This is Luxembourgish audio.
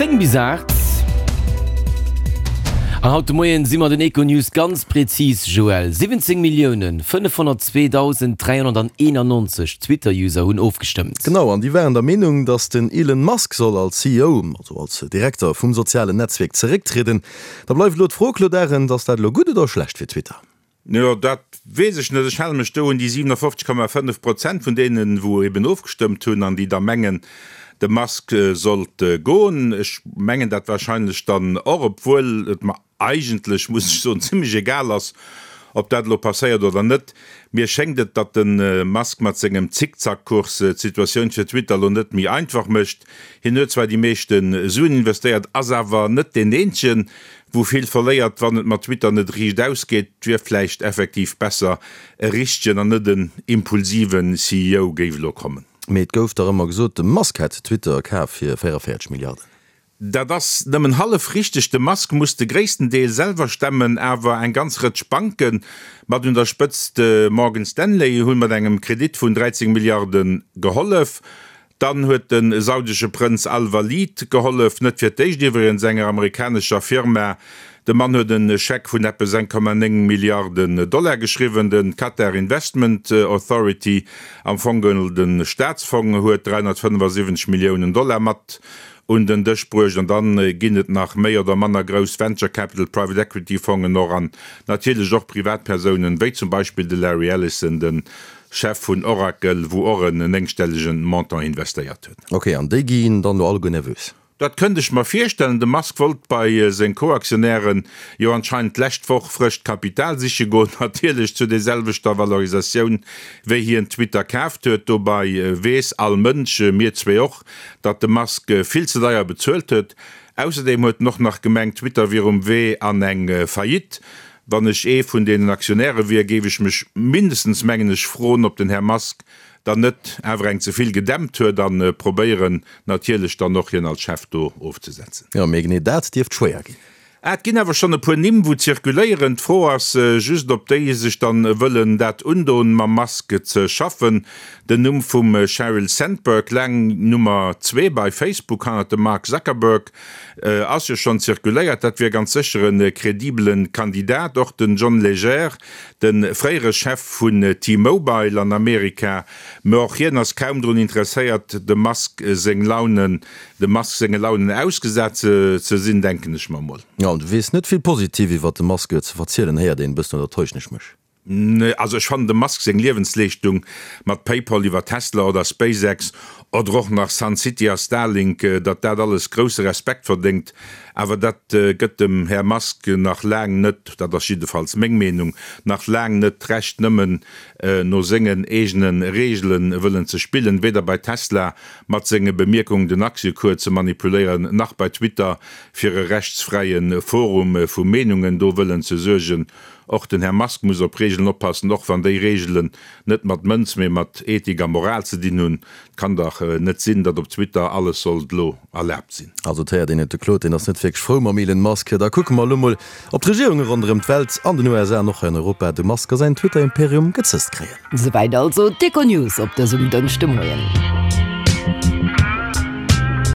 10 bis 8. An haut de Moien si mer den Econews ganz prezis, Joël. 17 Milliounen 502.391 Twitter-User hunn ofgestëmmt. Genau, an déi waren der Meenung, datt den Elon Musk soll als CEO, also als Direkter vum sozialen Netzwierk zerécktrieden. Da bleift elo d'Fro, Claude Arend, ass dat elo gutt oder schlecht fir Twitter? Jo, dat weess ech net. Ech hale mech do un déi 57,5 Prozent vun deenen, wou eben ofgestëmmt hunn an déi da mengen, de Musk sollt goen. Ech mengen dat wahrscheinlech dann och, obwuel et mer eigentlech, muss ech soen, zimlech egal ass, ob dat elo passéiert oder net. Mir schéngt et, datt de Musk mat sengem Zickzackkurs d'Situatioun fir Twitter elo net méi einfach mécht. Hien huet zwar déi meeschte Suen investéiert, ass awer net deen eenzegen, wou vill verléiert. Wann et mat Twitter net riicht ausgeet, wier vläicht effektiv besser e richtegen an net en impulsiven CEO géif elo kommen. Mee et gouf dach ëmmer gesot, de Musk hätt Twitter kaf fir 44 Milliarden. Dat ass nëmmen hallef richteg. De Musk muss de gréissten Deel selwer stemmen, awer eng ganz Rëtsch Banken, mat un der Spëtzt de Morgan Stanley, hunn mat engem Kredit vun 13 Milliarde gehollef. Dann huet de saudesche Prënz Al-Walid gehollef, net fir d'éischt iwwregens enger amerikanescher Firma. De Mann huet e Scheck vun eppes 1,9 Milliarden Dollar geschriwwen. De Qatar Investment Authority, am Fong geholl de Staatsfong, huet 375 Milliounen Dollar mat un den Dësch bruecht. An dann ginn et nach méi oder manner grouss Venture Capital, Private Equity Fongen och an natierlech och Privatpersounen, wéi zum Beispill de Larry Ellison, de Chef vun Oracle, wou och en néngstellegen Montant investéiert huet. Ok, an déi ginn dann elo alleguer nervös? Dat kënnt ech mer virstellen. De Musk wollt bei seng Co-Aktionären jo anscheinend d'lescht Woch frëscht Kapital siche goen, natierlech zu der selwechter Valorisatioun wéi hien Twitter kaaft huet. Dobei weess all Mënsch, mir zwee och, datt de Musk vill ze deier bezuelt huet. Ausserdeem huet en och nach gemengt, Twitter wier um Wee an eng Faillite. Wann ech ee vun deenen Aktionäre wier, géif ech mech mindestens, mengen ech, froen, ob den Här Musk dann net awer eng ze vill gedämpt huet a probéieren natierlech dann och, hien als Chef do ofzesetzen. Jo, mee genee dat dierft schwéier ginn. Ah, et ginn awer schonn e puer Nimm, wou zirkuléieren. D'Fro ass just, ob déi sech dann wëllen dat undoen, mam Musk ze schaffen. Den Numm vum Sheryl Sandberg, laang Nummer zwee bei Facebook hannert dem Mark Zuckerberg, Ass jo schonn zirkuléiert, dat wier ganz sécher e kredibele Kandidat. Och den John Legere, de fréiere Chef vun T-Mobile an Amerika, mä och hien ass kaum drun interesséiert, dem Musk seng Launen, dem Musk senge Launen ausgesat ze sinn, denken ech mer mol. Jo, an du weess net vill positiv iwwert de Musk ze verzielen, héiert een e bëssen, oder täuschen ech mech? Nee, also ech fannen dem Musk seng Liewensleeschtung mat Paypal iwwer Tesla oder SpaceX oder och nach Sun City a Starlink, datt dat alles grousse Respekt verdéngt. Awer dat gëtt dem Här Musk nach laang net, dat ass jiddefalls meng Meenung, nach laang net d'Recht nëmmen no sengen eegene Reegele wëllen ze spillen, weder bei Tesla mat senge Bemierkungen den Aktiëcours ze manipuléieren, nach bei Twitter fir e rechtsfräie Forum vu Meenungen do wëllen ze suergen. Och den Här Musk muss op Regeln oppassen, och wann déi Regelen net mat Mënz, mee mat Ethik a Moral ze dinn hunn. Et kann dach net sinn, datt op Twitter alles sollt elo erlaabt sinn. Also et héiert een et, de Claude, deen ass net wierklech frou mam Elon Musk. Da kucke mer elo mol, ob d'Regierunge ronderëm d'Welt, an den USA an och hei an Europa, de Musk a säin Twitter-Imperium gezësst kréien. Souwäit also d'Econews op dësem Dënschdemoien.